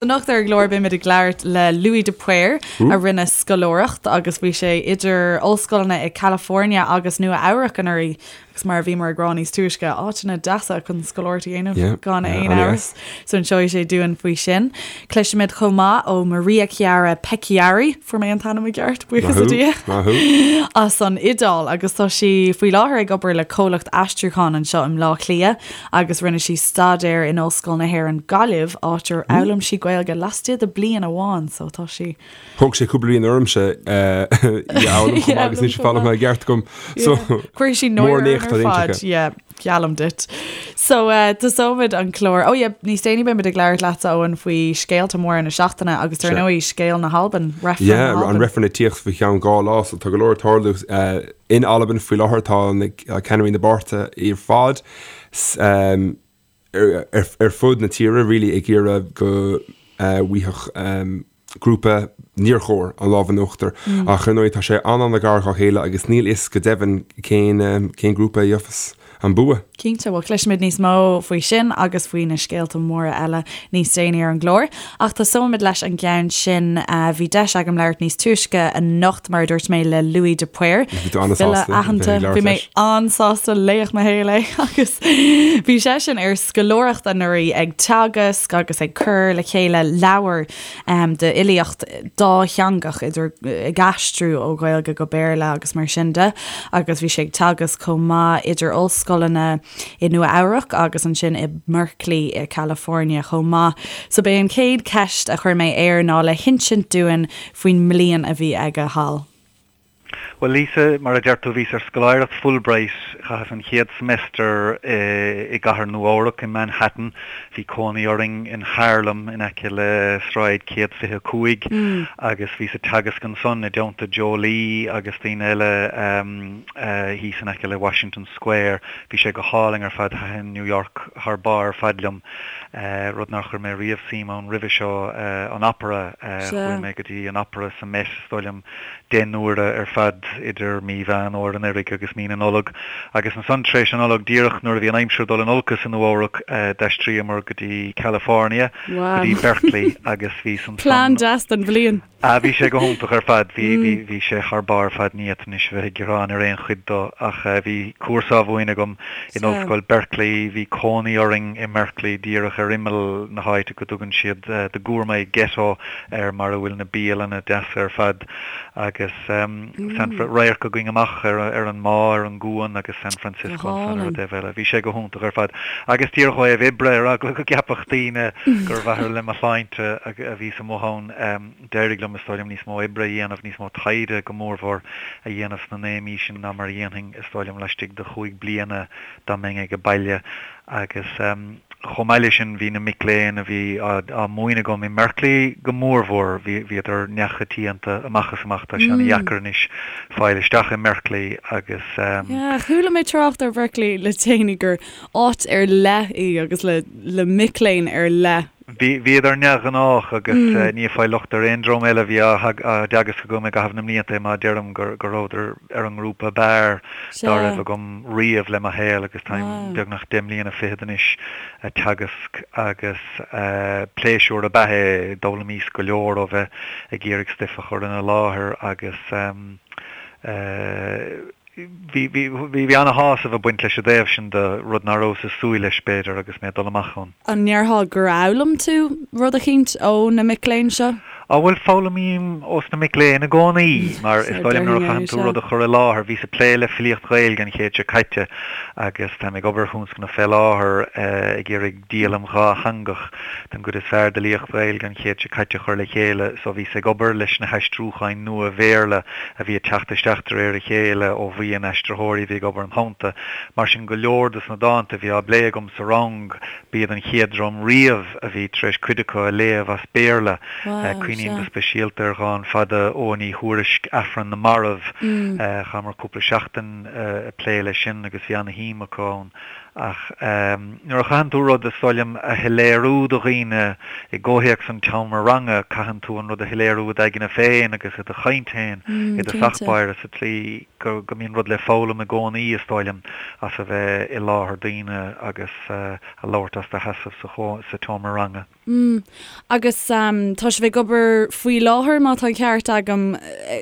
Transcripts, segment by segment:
Anocht ar an gclár beimid ag labhairt le Louis de Paor a rinne scoláireacht agus bhí sé idir ollscoileanna i California agus Nua Eabhrac anuraidh agus mar a bhíomar ag rá níos túisce, áiteanna deasa chun scoláireacht a dhéanamh gan aon amhras. So inseoidh sé dúinn faoi sin. Cloisfimid chomh maith ó Maria Chiara Pecchiari, fuair mé an t-ainm i gceart, buíochas le Dia, as an Iodáil agus tá sí faoi láthair ag obair le comhlacht aistriúcháin anseo i mBleá Cliath. agus rinne sí staidéar in Ollscoil na hÉireann Gaillimh, áit ar fhoghlaim sí Gaeilge laistigh de bliain amháin, so tá sí. Thóg sé cúpla bliain ormsa í a fhoghlaim chomh maith agus níl sé foghlamtha i gceart agam. So, Cuirfidh sí náire orainn ar fad, yeah, geallaim duit. So, tosóimid an clár. Oh yeah, níos déanaí beimid ag labhairt leatsa, Eoin, faoi scéalta móra na seachtaine agus dar ndóigh scéal na hAlban, reifreann na Yeah, an reifreann ag tíocht faoi cheann 2 lá, so tá go leor ag tarlú. In Albain faoi láthair tá na ceannairí na bpáirtithe ar fad ar fud na tíre really ag iarraidh go bhfaigheadh grúpa níor chóir an lámh in uachtar. Ach ar ndóigh tá sé an-an-ghar dhá chéile agus níl fhios go deimhin cén cén grúpa a gheofas an bua. Cinnte, bhuel cloisfimid níos mó faoi sin agus faoi na scéalta móra eile níos déanaí ar an gclár. Ach tosóimid leis an gceann sin. Bhí deis agam labhairt níos túisce anocht, mar a dúirt mé, le Louis de Paor, Bhí tú an-sásta file aitheanta. Bhí mé an-sásta, laoch mo shaoil é agus bhí seisean ar scoláireacht anuraidh ag teagasc agus ag cur le chéile leabhar d'fhilíocht dátheangach, idir ag aistriú ó Ghaeilge go Béarla agus mar sin de, agus bhí sé ag teagasc chomh maith idir ollscoileanna i Nua Eabhrac agus ansin i mBerkeley i California chomh maith. So b'é an chéad cheist a chuir mé air ná le hinsint dúinn faoin mbliain a bhí aige thall. Bhuel, Lisa, mar a deir tú, bhíos ar scoláireacht Fulbright. Chaitheas an chéad semester i gcathair Nua-Eabhrac, i Manhattan. Bhí cónaí orainn in Harlem, in aice le Sráid 125, agus bhíos ag teagasc ansan i dteannta Joe Lee agus daoine eile thíos in aice le Washington Square. Bhí sé go hálainn ar fad. Thaitin New York thar barr ar fad liom, rud nár chuir mé riamh suim ann roimhe seo, an opera. Chuaigh mé go dtí an opera sa Met, is dóigh liom, 10 n-uaire ar fad idir mí Mheán Fhómhair anuraidh agus mí na Nollag. Agus ansan tar éis na Nollag, díreach nuair a bhí an aimsir ag dul in olcas i Nua Eabhrac, d'aistríomar go dtí California, go dtí Berkeley agus bhíos ansan. Plean deas don bhliain. Ah, bhí sé go hiontach ar fad. Bhí, bhí, bhí sé thar barr ar fad. Ní fhéadfainn anois a bheith ag gearán ar aon chuid dó ach bhí cúrsa á mhúineadh agam in Ollscoil Berkeley. Bhí cónaí orainn i mBerkeley, díreach ar imeall na háite go dtugann siad The Gourmet Ghetto air mar a bhfuil na bialanna deasa ar fad agus San Fr, radharc againn amach ar ar an mbá, ar an gcuan agus San Francisco ansan ar an dtaobh eile. Bhí sé go hiontach ar fad. Agus díreach ó thaobh oibre, ar eagla go gceapfadh daoine gur ar mhaithe le mo shláinte a bhíos amuigh ann, d'éirigh liom, is dóigh liom, níos mó oibre a dhéanamh, níos mó taighde go mórmhór a dhéanamh sna 9 mí sin ná mar a dhéanfainn, is dóigh liom, laistigh de chúig bliana dá mbeinn age baile. Agus chomh maith leis sin, bhí na mic léinn a bhí á múineadh agam i mBerkeley go mórmhór, bhíodar neamhchoitianta amach is amach. Tá sé ana-dheacair anois fáil isteach i mBerkeley agus. Yeah, chuala mé trácht ar Berkeley le déanaí gur áit ar leith í agus le le mic léinn ar leith. Bhí, bhíodar neamhghnách agus ní ag fáil locht ar aon dream eile a bhí á dteagasc agam i gcaitheamh na mblianta é má deirim go rabhadar ar an ngrúpa ab fhearr dá raibh agam riamh le mo shaol agus táim beagnach 10 mbliana fichead anois ag teagasc agus pléisiúr ab ea é, d'fhoghlaimíos go leor ó bheith ag iarraidh stuif a chur ina láthair agus Bhí, bhí, bhí ana-shásamh ag baint leis i dtaobh sin de, rud ná rabhas ag súil leis, b'fhéidir, agus mé ag dul amach ann. An ndéarfá gur fhoghlaim tú rud eicínt ó na mic léinn seo? Á bhuel, foghlaimím ós na mic léinn i gcónaí, mar is dóigh liom nuair a chaitheann tú rud a chur i láthair, bhíos ag plé le filíocht Ghaeilge an chéad seo caite agus táim ag obair ar thionscnamh fé láthair ag iarraidh díolaim dhátheangach den gcuid is fearr d'fhilíocht Ghaeilge an chéid seo caite a chur le chéile so bhíos ag obair leis na haistriúcháin nua Bhéarla a bhí ag teacht isteach de réir a chéile ó bhuíon aistritheoirí a bhí ag obair im theannta. Mar sin go leor dos na dánta a bhí á bplé agam sa rang b'iad an chéad dream riamh a bhí tar éis cuid acu a léamh as Béarla. Cuimhním go speisialta ar dhán fada Eoghain Uí Thuairisc, Aifreann na Marbh. Chaitheamar cúpla seachtain ag plé leis sin agus bhí ana-shuim acu ann. Ach nuair a chaitheann tú rud, is dóigh liom, a shoiléiriú do dhaoine i gcomhthéacs an tseomra ranga, caitheann tú an rud a shoiléiriú i d'aigne féin agus i do chaint féin i dtosach báire sa tslí go mbíonn rud le foghlaim i gcónaí, is dóigh liom, as a bheith i láthair daoine agus a labhairt as do sheasamh sa tseomra ranga. Mm. Agus tá sibh ag obair faoi láthair, má tá an ceart agam,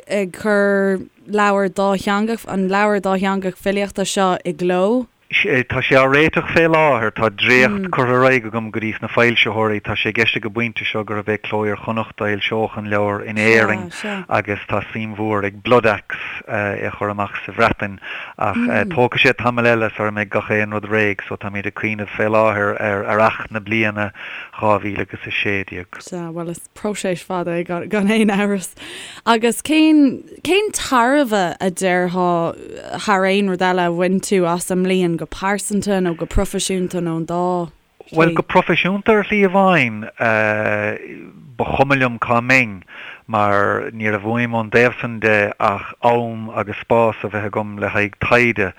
ag cur leabhar dátheangach, an leabhar dátheangach filíochta seo i gcló? Tá sé á réiteach fé láthair. Tá dréacht curtha ar aghaidh agam go dtí sna foilsitheoirí. Tá sé i gceist ag an bpointe seo gurb é Cló Iar-Chonnacht a fhoilseodh an leabhar in Éirinn agus tá suim mhór ag Bloodaxe é a chur amach sa Bhreatain. Ach tógfaidh sé tamall eile sara mbeidh gach aon rud réidh so táimid ag cuimhneamh fé láthair ar earrach na bliana 2016. Sea, bhuel is próiseas fada é gan aon amhras. Agus cén, cén tairbhe a déarfá thar aon rud eile a bhain tú as an mbliain go pearsanta nó go proifisiúnta nó an dá shlí? Bhuel, go proifisiúnta ar shlí amháin, ba chuma liom cá mbeinn mar ní raibh uaim ón dtaobh san de ach am agus spás a bheith agam le haghaidh taighde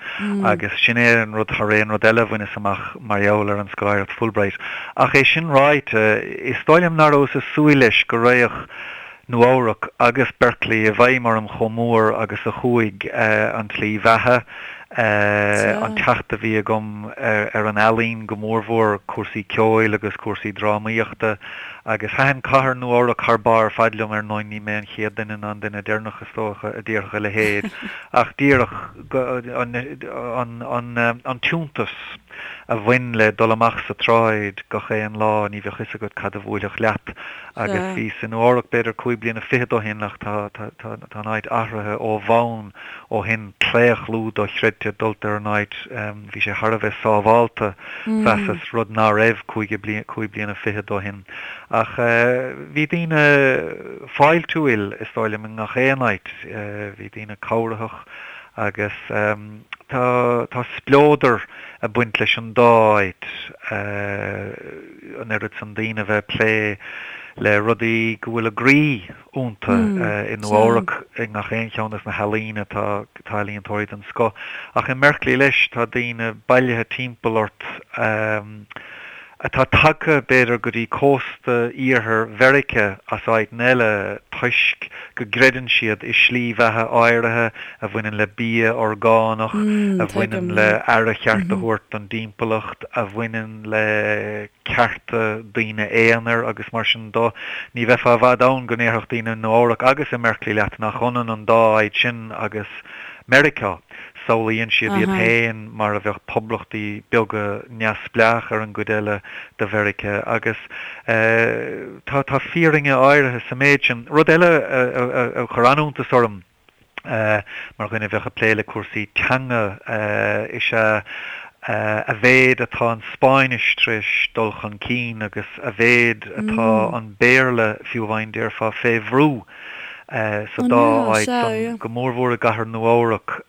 agus sin é an rud thar aon rud eile a bhaineas amach mar gheall ar an scoláireacht Fulbright. Ach é sin ráite, is dóigh liom nach rabhas ag súil leis go raghadh Nua Eabhrac agus Berkeley i bhfeidhm orm chomh mór agus a chuaigh, an tslí bheatha, an teacht a bhí agam ar an ealaín, go mórmhór cúrsaí ceoil agus cúrsaí drámaíochta. Agus thaitin cathair Nua Eabhrac thar barr ar fad liom, ar ndóigh ní mé an chéad duine ná an duine deireanach is dócha a déarfadh a leithéid, ach díreach an t-iontas a bhain le dul amach sa tsráid gach aon lá, ní bheadh fhios agat cad a bhuailfeadh leat. Agus bhíos i Nua Eabhrac b'fhéidir cúig bliana fichead ó shin ach tá an áit athraithe ó bhonn ó shin, claochlú dochreidte dulta ar an áit, bhí sé thar a bheith sábhálta, mheasas, rud ná raibh cúig bliana fichead ó shin. Ach bhí daoine fáiltiúil, is dóigh liom, i ngach aon áit, bhí daoine cabhraitheach agus tá tá spleodar ag baint leis an dá áit, an oiread san daoine a bheith ag plé le rudaí go bhfuil a gcroí iontu i Nua Eabhrac i ngach aon cheann des na healaíona tá tá ealaíontóirí den scoth. Ach i mBerkeley leis tá daoine bailithe timpeall ort atá tagtha b'fhéidir go dtí cósta iarthar Mheiriceá as áiteanna eile toisc go gcreideann siad i slí bheatha áirithe a bhaineann le bia orgánach, a bhaineann le aire cheart a thabhairt don dtimpeallacht, a bhaineann le cearta daoine aonair agus mar sin do. Ní bheifeá i bhfad ann go ndéarfadh daoine i Nua Eabhrac agus i mBerkeley leat nach ionann an dá áit sin agus Meiriceá. Samhlaíonn siad iad féin mar a bheadh poblachtaí beaga neamhspleách ar an gcuid eile de Mheiriceá agus tá tá fírinne áirithe sa méid sin. Rud eile a chuir an-iontas orm, mar dhuine a bheadh ag plé le cúrsaí teanga, is ea a mhéid atá an Spáinnis tar éis dul chun cinn agus a mhéid atá an Béarla, fiú amháin déarfá, fé bhrú sa dá áit san. Go mórmhór i gcathair Nua-Eabhrac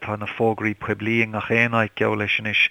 tá na fógraí poiblí i ngach aon áit, geall leis anois,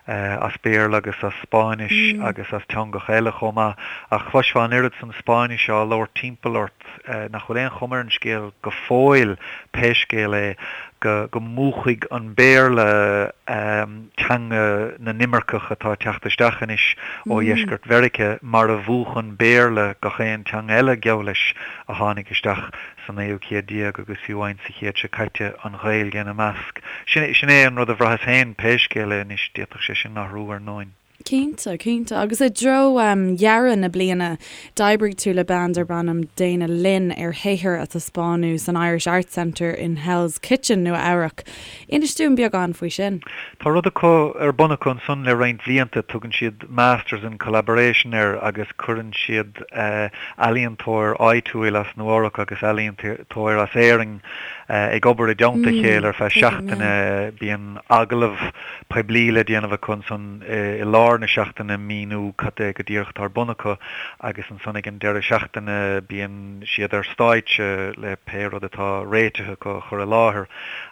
as Béarla agus as Spáinnis agus as teangacha eile chomh maith. Ach chloisfeá an oiread san Spáinnise á labhairt timpeall ort, nach bhfuil aon chuma ar an scéal go fóill, pé scéal é, go múchfaidh an Béarla teanga na n-imirceach atá ag teacht isteach anois ó dheisceart Mheiriceá, mar a mhúch an Béarla gach aon teanga eile, geall leis, a tháinig isteach sa naoú céad déag agus fiú amháin sa chéad seo caite, an Ghaeilge ina measc. Sin é an rud a bhraitheas féin, pé scéal é anois, d'fhéadfadh sé sin athrú, ar ndóin. Cinnte, cinnte. Agus i dtreo dheireadh na bliana, d'oibrigh tú le bean darb ainm Dana Lynn ar shaothar a taispeánadh san Irish Arts Centre in Hell's Kitchen, Nua Eabhrac. Inis dúinn beagán faoi sin. Tá rud acu ar bun acu ansan le roinnt bhlianta, tugann siad Masters in Collaboration air agus cuireann siad ealaíontóir áitiúil as Nua Eabhrac agus ealaíontóir as Éirinn ag obair i dteannta a chéile ar feadh seachtaine. Bíonn agallamh poiblí le déanamh acu ansan i lár na seachtaine, míniú cad é go díreach atá ar bun acu agus ansan ag an deireadh seachtaine bíonn siad ar stáitse le pé rud atá réitithe acu a chur i láthair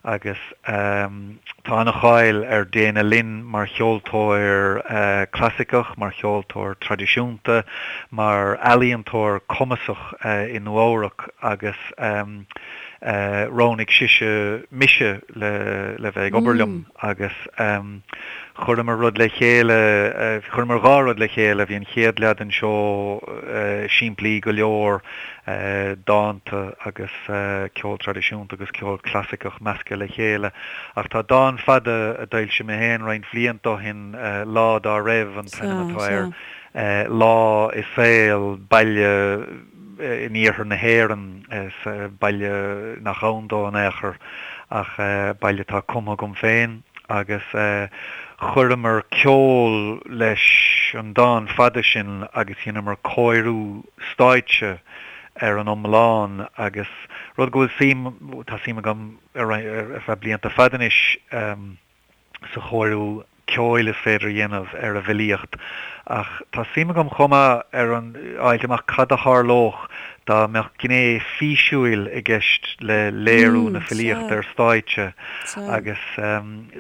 agus tá an-cháil ar Dana Lynn mar cheoltóir clasaiceach, mar cheoltóir traidisiúnta, mar ealaíontóir cumasach i Nua Eabhrac agus roghnaigh sise mise le bheith ag obair liom agus. Chuireamar rud le chéile, chuireamar 2 rud le chéile, bhí an chéad leath den seó simplí go leor, dánta agus ceol traidisiúnta agus ceol clasaiceach measctha le chéile. Ach tá dán fada a d'fhoilsigh mé féin roinnt bhlianta ó shin, Lá Dá Raibh an t-ainm atá air, lá i saol baile in iarthar na hÉireann, baile nach ann dó in aon chor ach baile atá cumtha agam féin agus chuireamar ceol leis an dán fada sin agus dheineamar cóiriú stáitse ar an iomlán agus rud go bhfuil suim, tá suim agam ar feadh blianta fada anois sa chóiriú ceoil is féidir a dhéanamh ar an bhfilíocht ach tá suim agam chomh maith ar an fháilt amach cad a tharlódh dá mbeadh gné físiúil i gceist le léiriú na filíochta ar stáitse agus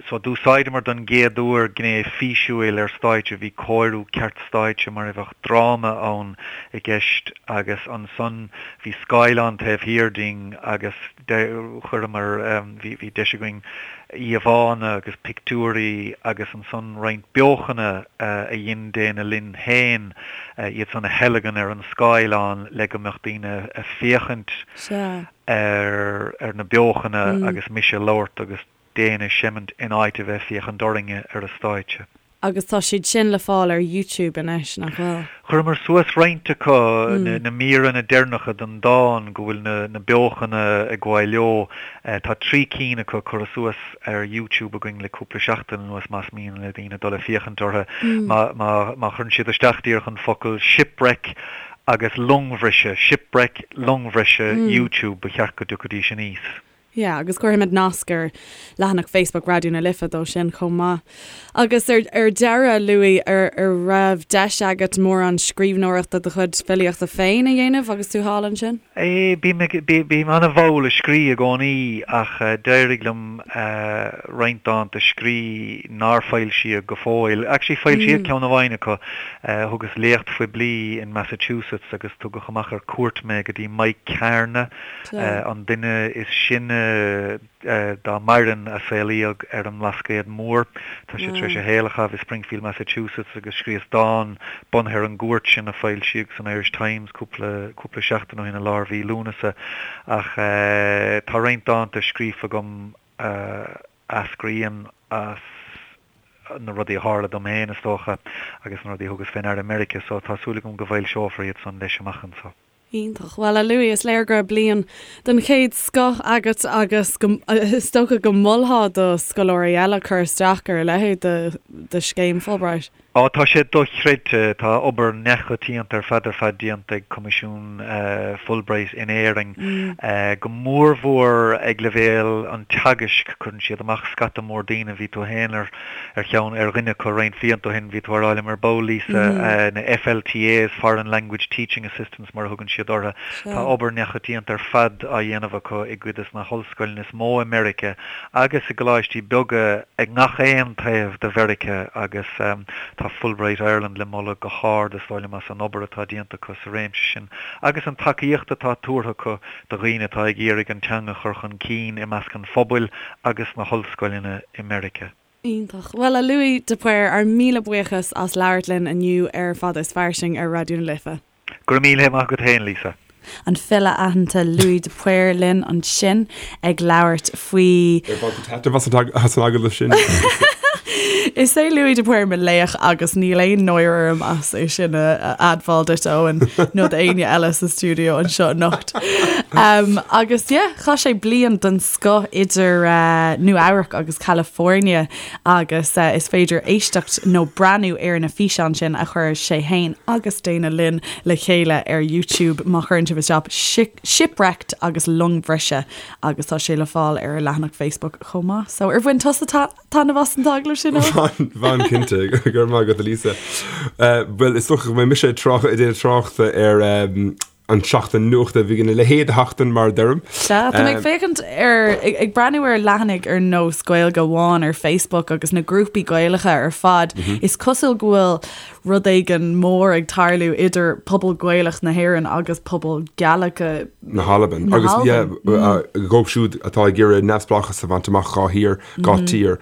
so d'úsáideamar don gcéad uair gné físiúil ar stáitse, bhí cóiriú ceart stáitse mar a bheadh dráma ann i gceist agus ansan bhí scáileán taobh thiar dínn agus chuireamar, bhí deis againn íomhánna agus pictiúirí agus ansan roinnt beochana a dhein Dana Lynn féin, iad san a theilgean ar an scáileán le go mbeadh daoine ag féachaint ar na beochana agus mise ag labhairt agus Dana ag seimint in áit a bheith ag féachaint orainne ar an stáitse. Agus tá siad sin le fáil ar YouTube anois, nach bhfuil? Chuireamar suas roinnt acu, na míreanna deireanacha den dán go bhfuil na beochana ag gabháil leo. Tá 3 cinn acu curtha suas ar YouTube againn le cúpla seachtain anuas más mian le daoine dul ag féachaint orthu. Má chuireann siad isteach díreach an focal 'shipwreck' agus 'longbhriseadh', shipwreck, longbhriseadh, YouTube, ba cheart go dtiocfaidís aníos. Yeah, agus cuirfimid nasc ar leathanach Facebook Raidió na Life dó sin chomh maith. Agus ar ar deireadh, Louis, ar ar raibh deis agat mórán scríbhneoireachta do chuid filíochta féin a dhéanamh agus tú thall ansin? Eh, bím ag, bím an-mhall ag scrí i gcónaí ach d'éirigh liom roinnt dánta a scrí nár foilsíodh go fóill. Actually foilsíodh ceann amháin acu. Thugas léacht phoiblí in Massachusetts agus tugadh amach ar cuairt mé go dtí Mike Kearney, an duine is sine dá maireann a saolaíodh ar an mBlascaod Mór. Tá sé tar éis a shaol a chaitheamh i Springfield, Massachusetts agus scríos dán bunaithe ar an gcuairt sin a foilsíodh san Irish Times cúpla cúpla seachtain ó shin i lár mhí Lúnasa. Ach tá roinnt dánta scríofa agam a eascraíonn as na rudaí a tharla dom féin, is dócha, agus na rudaí a thugas fé ndeara i Meiriceá, so tá súil agam go bhfoilseofar iad san leis amach anso. Iontach. Bhuel, a Louis, is léir go raibh bliain den chéad scoth agat agus go, is dócha go molfá do scoláirí eile cur isteach ar a leithéid de, de scéim Fulbright. Á, tá sé dochreidte. Tá obair neamhchoitianta ar fad ar fad déanta ag Coimisiún Fulbright in Éirinn, go mórmhór ag leibhéal an teagaisc. Cuireann siad amach scata mór daoine. Bhí tú féin ar ar cheann, ar dhuine acu roinnt blianta ó shin, bhí tú á rá liom ar ball, Lisa, na FLTAs, Foreign Language Teaching Assistants mar a thugann siad orthu. Tá obair neamhchoitianta ar fad á dhéanamh acu i gcuid des na hollscoileanna is mó i Meiriceá agus i gcoláistí beaga ag ngach aon taobh de Mheiriceá agus tá Fulbright Ireland le moladh go hard is dóigh liom as an obair atá déanta acu sa réimse sin agus an tacaíocht atá tabhartha acu do dhaoine atá ag iarraidh an teanga a chur chun cinn i measc an phobail agus sna hollscoileanna i Meiriceá. Iontach. Bhuel, a Louis de Paor, ár míle buíochas as labhairt linn inniu ar Fada is Fairsing ar Raidió na Life. Go raibh míle maith agat féin, Lisa. An file aitheanta Louis de Paor linn ansin ag labhairt faoi. Ar bhain tú taitneamh as an agallamh sin? Is é Louis de Paor mo laoch agus níl aon náire orm as é sin a admháil duit, Eoin, nó d'éinne eile sa stiúideo anseo anocht. Um, agus yeah, chaith sé bliain den scoth idir uh, Nua Eabhrac agus California agus uh, is féidir éisteacht nó breathnú ar na físeáin sin a chuir sé féin agus Dana Lynn le chéile ar YouTube má chuireann sibh isteach Shipwrecked agus Longbhriseadh agus tá sé le fáil ar a leathanach Facebook chomh maith. So ar bhain tusa taitneamh as an t-agallamh sin? Bhain, bhain cinnte, go raibh maith agat a Lisa. Bhuel, is dócha go mbeidh mise ag trácht, ag déanamh tráchta ar. an tseachtain nuachta, bhí a leithéid de sheachtain mar a deirim. Sea, tá mé ag féachaint ar, ag breathnú ar leathanaigh ar nós Gaeilge Amháin ar Facebook agus na grúpaí Gaelacha ar fad, is cosúil go bhfuil rud éigin mór ag tarlú idir pobal Gaelach na hÉireann agus pobal Gaelic na hAlban. Agus yeah, dhóibh siúd atá ag iarraidh neamhspleáchas a bhaint amach dhá thír, dhá tír,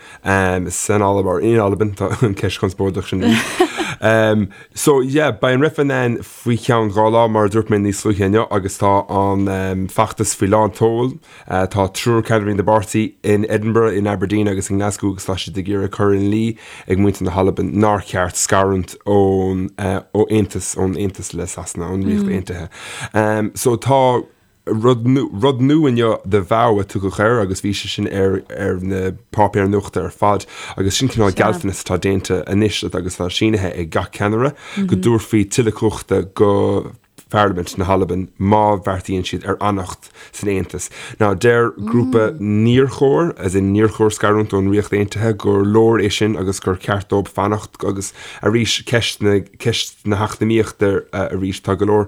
san Albain, or in Albain, tá an ceist chonspóideach sin arís. So yeah, beidh an reifreann ann faoi cheann 2 lá, mar a dúirt mé níos luaithe inniu, agus tá an feachtas faoi lán tseoil. Tá triúr ceannairí na bpáirtí in Edinburgh, in Aberdeen agus i nGlasgow agus tá siad ag iarraidh cur ina luí ag muintir na hAlban nár cheart scarúint ón ó aontas ón aontas le Sasana, ón Ríocht Aontaithe. So tá Rud rud nua inniu, The Vow a tugadh air agus bhí sé sin ar ar na páipéir nuachta ar fad agus sin cineál gealltanas atá déanta anois agus atá sínithe ag gach ceannaire go dtabharfaí tuilleadh cumhachta go Pharlaimint na hAlban má bheartaíonn siad ar fhanacht san Aontas. Now deir grúpa níor chóir, as in níor chóir scarúint ón Ríocht Aontaithe, gur leor é sin agus gur ceart dóibh fanacht agus arís ceist na ceist na heacnamaíochta arís tá go leor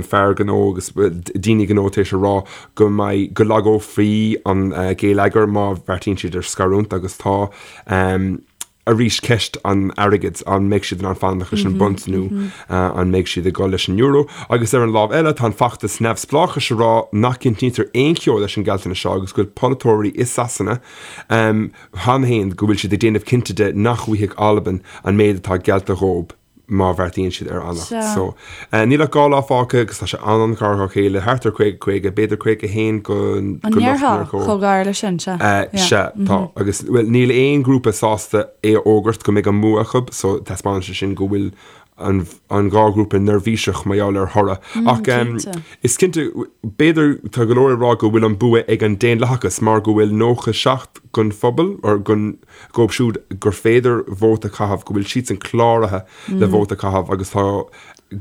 fear gnó agus daoine gnó tar éis a rá go mbeidh, go lagófaí an géilleagar má bheartaíonn siad ar scarúint agus tá arís ceist an airgid, an mbeidh siad in ann fanacht leis an bpunt nó an mbeidh siad ag dul leis an euro? Agus ar an lámh eile tá an feachtas neamhspleáchais ag rá nach gcinntítear aon cheo leis an ggealltanas seo agus go bhfuil polaiteoirí i Sasana cheana féin go bhfuil siad ag déanamh cinnte de nach bhfaighidh Albain an méid atá geallta dhóibh. má bheartaíonn siad ar fhanacht. So, níl ach 2 lá fágtha agus tá sé an-an-ghar dhá chéile, thart ar 50, 50, b'fhéidir 51 go An ndéarfá chomh gar leis sin, sea. Sea, tá. Agus, bhuel, níl aon ghrúpa sásta é a fhógairt go mbeidh an bua acu, so taispeánann sé sin go bhfuil an an dhá ghrúpa neirbhíseach mar gheall ar thoradh. Ach is cinnte, b'fhéidir, tá go leor ag rá go bhfuil an bua ag an Daonlathachas mar go bhfuil 97 den phobal, or den, dhóibh siúd gur féidir vóta a chaitheamh, go bhfuil siadsan cláraithe le vóta a chaitheamh agus tá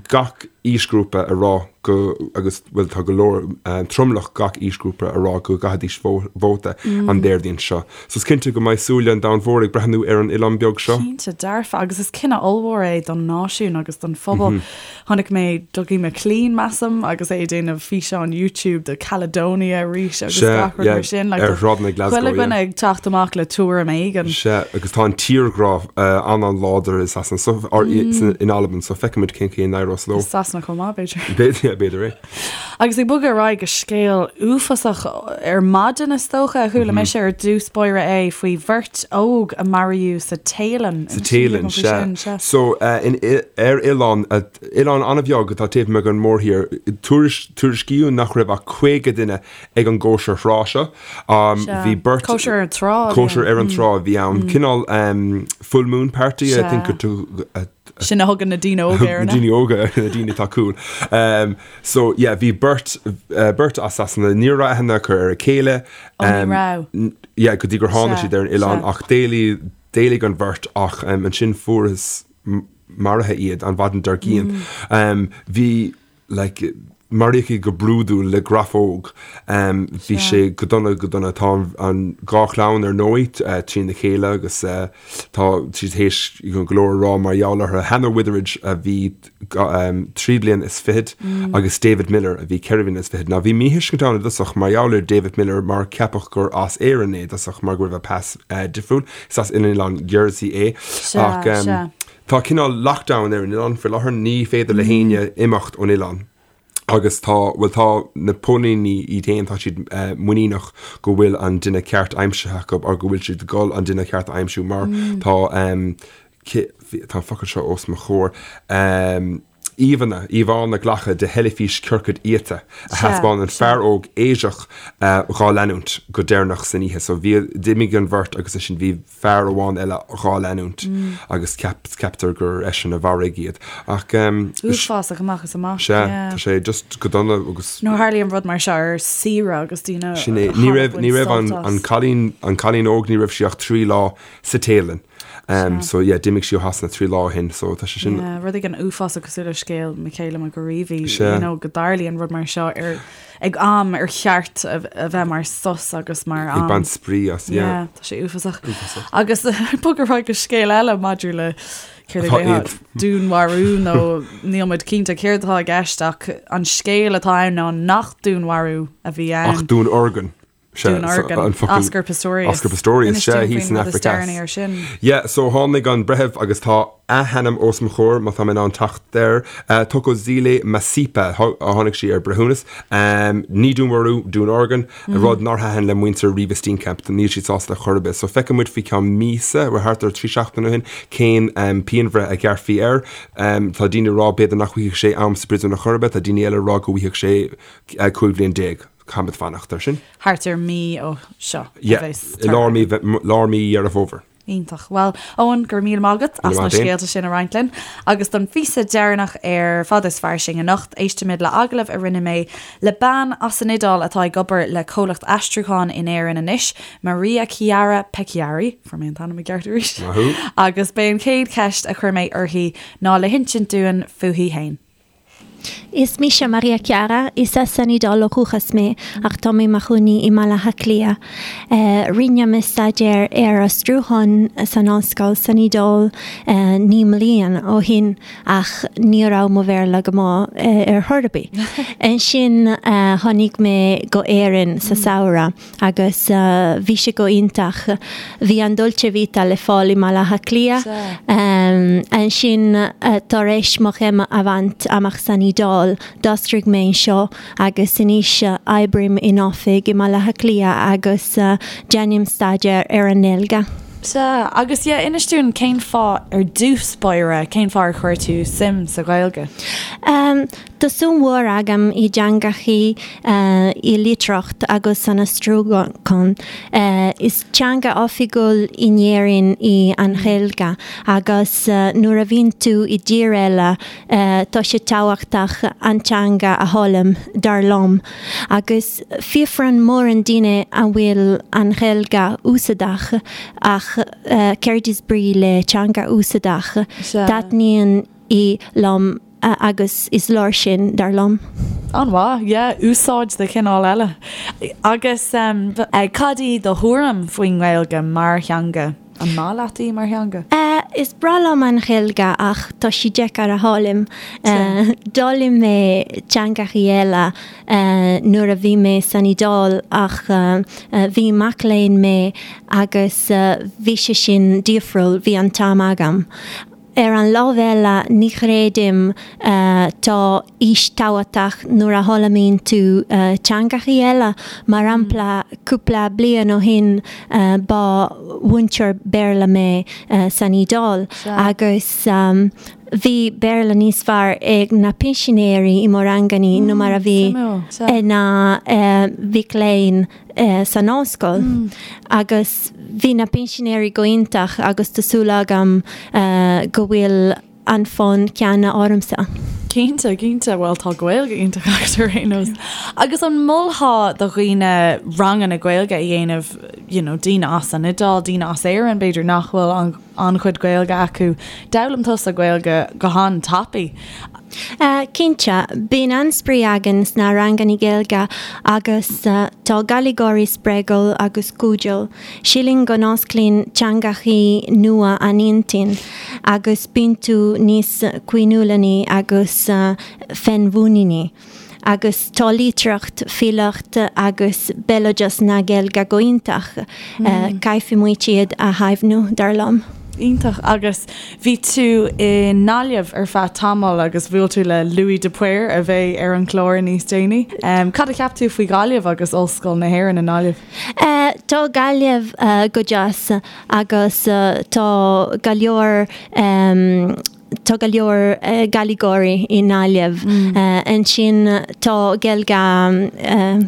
gach aoisghrúpa ag rá go, agus bhuel tá go leor, tromlach gach aoisghrúpa ag rá go gcaithfidís vóta an Déardaoin seo. So is cinnte go mbeidh súile an domhain mhóir ag breathnú ar an oileán beag seo. Cinnte dearfa, agus is cinneadh ollmhór é don náisiún agus don phobal. Chonaic mé Dougie MacLean, measaim, agus é ag déanamh físeán YouTube de Caledonia arís agus gach rud mar sin. Ar shráideanna Glasgow, Chuile dhuine ag teacht amach le tuairim éigin. Sea, agus tá an tírghrá an-an-láidir i Sasana, so, or in Albain, so feicfimid cén chaoi a n-éireos leo. I Sasana chomh maith, b'fhéidir. B'fhéidir, b'fhéidir é. Agus ag bogadh ar aghaidh go scéal uafásach ar maidin, is dócha, a chuala mise ar dtús báire é faoi bheirt óg a maraíodh sa Téalainn. Sa Téalainn, sea. So, in, ar oileán, oileán an-bheag atá taobh amuigh den mhórthír, tuairiscíodh nach raibh ach 50 duine ag an gcóisir thrá seo. Bhí beirt. Cóisir ar an trá a bhí ann. Cóisir ar an trá a bhí ann. Cineál full moon party, I think, Sin a thugann na daoine óga air. Na daoine óga, na daoine atá cool. So yeah, bhí beirt, beirt as Sasana, ní raibh aithne acu ar a chéile. Ó, ní raibh. Yeah, go dtí gur tháinig siad ar an oileán ach d'éalaigh, d'éalaigh an bheirt ach ansin fuarthas maraithe iad an mhaidin dár gcionn. Bhí, like, maraíodh iad go brúidiúil le grafóg. Bhí sé go dona, go dona. Tá an dhá chlann ar ndóigh trína chéile agus tá siad théis go leor a rá mar gheall orthu. Hannah Witheridge a bhí 3 bliana is fichead agus David Miller a bhí 4 bliana is fichead. Now bhí míthuiscint ann i dtosach mar gheall ar David Miller mar ceapadh gur as Éirinn é i dtosach mar go raibh a pas difriúil. Is as oileán Jersey é. Ach Tá cineál lockdown ar an oileán faoi láthair, ní féidir le héinne imeacht ón oileán agus tá, bhuel tá na póilíní iad féin, tá siad muiníneach go bhfuil an duine ceart aimsithe acu or go bhfuil siad ag dul an duine ceart a aimsiú mar tá, tá an focal seo os mo chomhair, íomhánna, íomhánna glactha de theilifís ciorcad iata a thaispeánann fear óg Áiseach dhá leanúint go deireanach san oíche. So bhí, d'imigh an bheirt agus ansin bhí fear amháin eile dhá leanúint agus ceaptar gur eisean a mharaigh iad. Ach. Uafásach amach is amach. Sea, tá sé just go dona agus. Nuair a tharlaíonn rud mar seo ar saoire agus daoine. Sin é. Ní raibh, ní raibh an, an cailín, an cailín óg, ní raibh sí ach 3 lá sa Téalainn. So yeah, d'imigh sí ó Shasana 3 lá ó shin, so tá sé sin. Yeah, rud éigin uafásach cosúil le scéal Michaela McAreavey, you know, go dtarlaíonn rud mar seo ar ag am ar cheart a bheith mar sos agus mar am. Ag baint spraoi as, yeah. Yeah, tá sé uafásach. Uafásach. Agus bog ar aghaidh go scéal eile maidir le. Céard a déarfá? Dúnmharú nó níl muid cinnte céard atá i gceist ach an scéal atá ann ná nach dúnmharú a bhí ann. Ach dúnorgain. Dúnorgain. Oscar Pistorius. Oscar Pistorius, sea, thíos san Afraic Theas. Yeah, so tháinig an breitheamh agus tá a hainm os mo chomhair má tá mé in ann teacht air, Thokozile Masipa, tháinig sí ar breithiúnas. Ní dúnmharú, dúnorgain. Rud nár thaitin le muintir Reeva Steenkamp, níl siad sásta chor ar bith. So feicfidh muid faoi cheann míosa, bhuel thart ar 3 seachtaine ó shin, cén pianbhreith a ghearrfaí air. Tá daoine ag rá b'fhéidir nach bhfaighidh sé am sa bpríosún ar chor ar bith, tá daoine eile ag rá go bhfaighidh sé 15 bhliain. Caithfimid fanacht air sin. Thart ar mí ó seo a bheas Yeah, i lár mí, lár mí Dheireadh Fómhair. Iontach. Bhuel, Eoin, go raibh míle maith agat as na scéalta sin a roinnt linn. Agus don phíosa deireanach ar Fada is Fairsing anocht, éistfimid le agallamh a rinne mé le bean as an Iodáil atá ag obair le comhlacht aistriúcháin in Éirinn anois, Maria Chiara Pecchiari, fuair mé an t-ainm i gceart arís, Maith thú. agus b'é an chéad cheist a chuir mé uirthi ná le hinsint dúinn fúithi fhéin. Is mise Maria Chiara, is as an Iodáil ó dhúchas mé ach tá mé i mo chónaí i mBaile Átha Cliath. Rinne mé staidéar ar aistriúchán san ollscoil san Iodáil 9 mbliana ó shin ach ní raibh mo Bhéarla go maith ar chor ar bith. Ansin tháinig mé go Éirinn sa samhradh. Agus bhí sé go iontach. Bhí an Dolce Vita le fáil i mBaile Átha Cliath. Ansin, tar éis mo chéim a bhaint amach san Iodáil, d'aistrigh mé anseo agus anois oibrím in oifig i mBaile Átha Cliath agus déanaim staidéar ar an nGaeilge. Sea, agus yeah, inis dúinn cén fáth ar dtús báire, cén fáth ar chuir tú suim sa Ghaeilge? Tá suim mhór agam i dteangachaí, i litríocht agus san aistriúchán. Is teanga oifigiúil in Éirinn í an Ghaeilge agus nuair a bhíonn tú i dtír eile tá sé tábhachtach an teanga a fhoghlaim, dar liom. Agus fiafraíonn mórán daoine an bhfuil an Ghaeilge úsáideach ach céard is brí le teanga úsáideach? Taitníonn í liom. agus is leor sin, dar liom. An-mhaith, yeah, úsáid de chineál eile. Agus cad í do thuairim faoin nGaeilge mar theanga? An maith leat í mar theanga? Is breá liom an Ghaeilge ach tá sí deacair a fhoghlaim. D'fhoghlaim mé teangachaí eile nuair a bhí mé san Iodáil ach bhí mac léinn mé agus bhí sé sin difriúil, bhí an t-am agam. Ar an lámh eile, ní chreidim tá aois tábhachtach nuair a fhoghlaimíonn tú teangachaí eile. Mar shampla, cúpla bliain ó shin ba mhúinteoir Béarla mé san Iodáil agus bhí Béarla níos fearr ag na pinsinéirí i mo ranganna ná mar a bhí ag na mhic léinn. san ollscoil agus bhí na pinsinéirí go iontach agus tá súil agam go bhfuil an fonn ceanna ormsa. Cinnte, cinnte, bhuel tá Gaeilge iontach agat ar aon nós. Agus an molfá do dhaoine ranganna Gaeilge a dhéanamh, you know, daoine as an Iodáil, daoine as Éirinn b'fhéidir nach bhfuil an an-chuid Gaeilge acu. D'fhoghlaim tusa Gaeilge go han-tapaidh. Cinnte, bíonn an-spraoi againn sna ranganna Gaeilge agus tá Gaeilgeoirí spreagúil agus cairdiúil. Sílim go n-osclaíonn teangachaí nua an intinn agus bíonn tú níos caoiniúlaí agus féinmhuiníní. Agus tá litríocht, filíocht agus béaloideas na Gaeilge go iontach. Caithfidh muid iad a chaomhnú, dar liom. Iontach. Agus bhí tú i nGaillimh ar feadh tamaill agus bhuail tú le Louis de Paor a bheidh ar an chlár níos déanaí. Cad a cheap tú faoi Ghaillimh agus Ollscoil na hÉireann i nGaillimh? Tá Gaillimh go deas agus tá go leor Tá go leor Gaeilgeoirí i nGaillimh. Ansin tá Gaeilge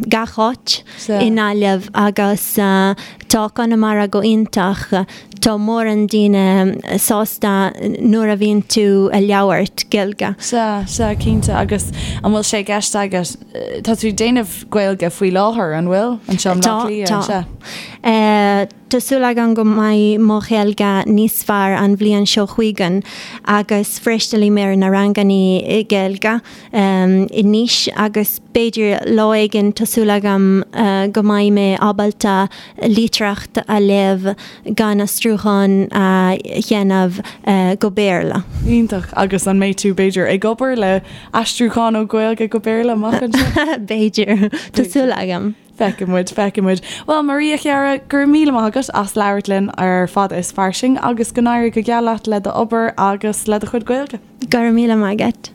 gach áit i nGaillimh agus tá Conamara go iontach. Tá mórán daoine sásta nuair a bhíonn tú ag labhairt Gaeilge. Sea, sea, cinnte. Agus an bhfuil sé i gceist agat, tá tú ag déanamh Gaeilge faoi láthair, an bhfuil? Anseo i mBleá Cliath, tá. Sea. Tá súil agam go mbeidh mo Ghaeilge níos fearr an bhliain seo chugainn agus freastalím ar na ranganna Gaeilge anois agus b'fhéidir lá éigin tá súil agam go mbeidh mé ábalta litríocht a léamh gan aistriúchán a dhéanamh go Béarla. Iontach. Agus an mbeidh tú, b'fhéidir, ag obair le aistriúchán ó Ghaeilge go Béarla amach anseo? B'fhéidir. Tá súil agam. Feicfidh muid, feicfidh muid. Bhuel, Maria, a chara, go raibh míle maith agat as labhairt linn ar Fada is Fairsing agus go n-éirí go geal leat le d'obair agus le do chuid Gaeilge. Go raibh míle maith agat.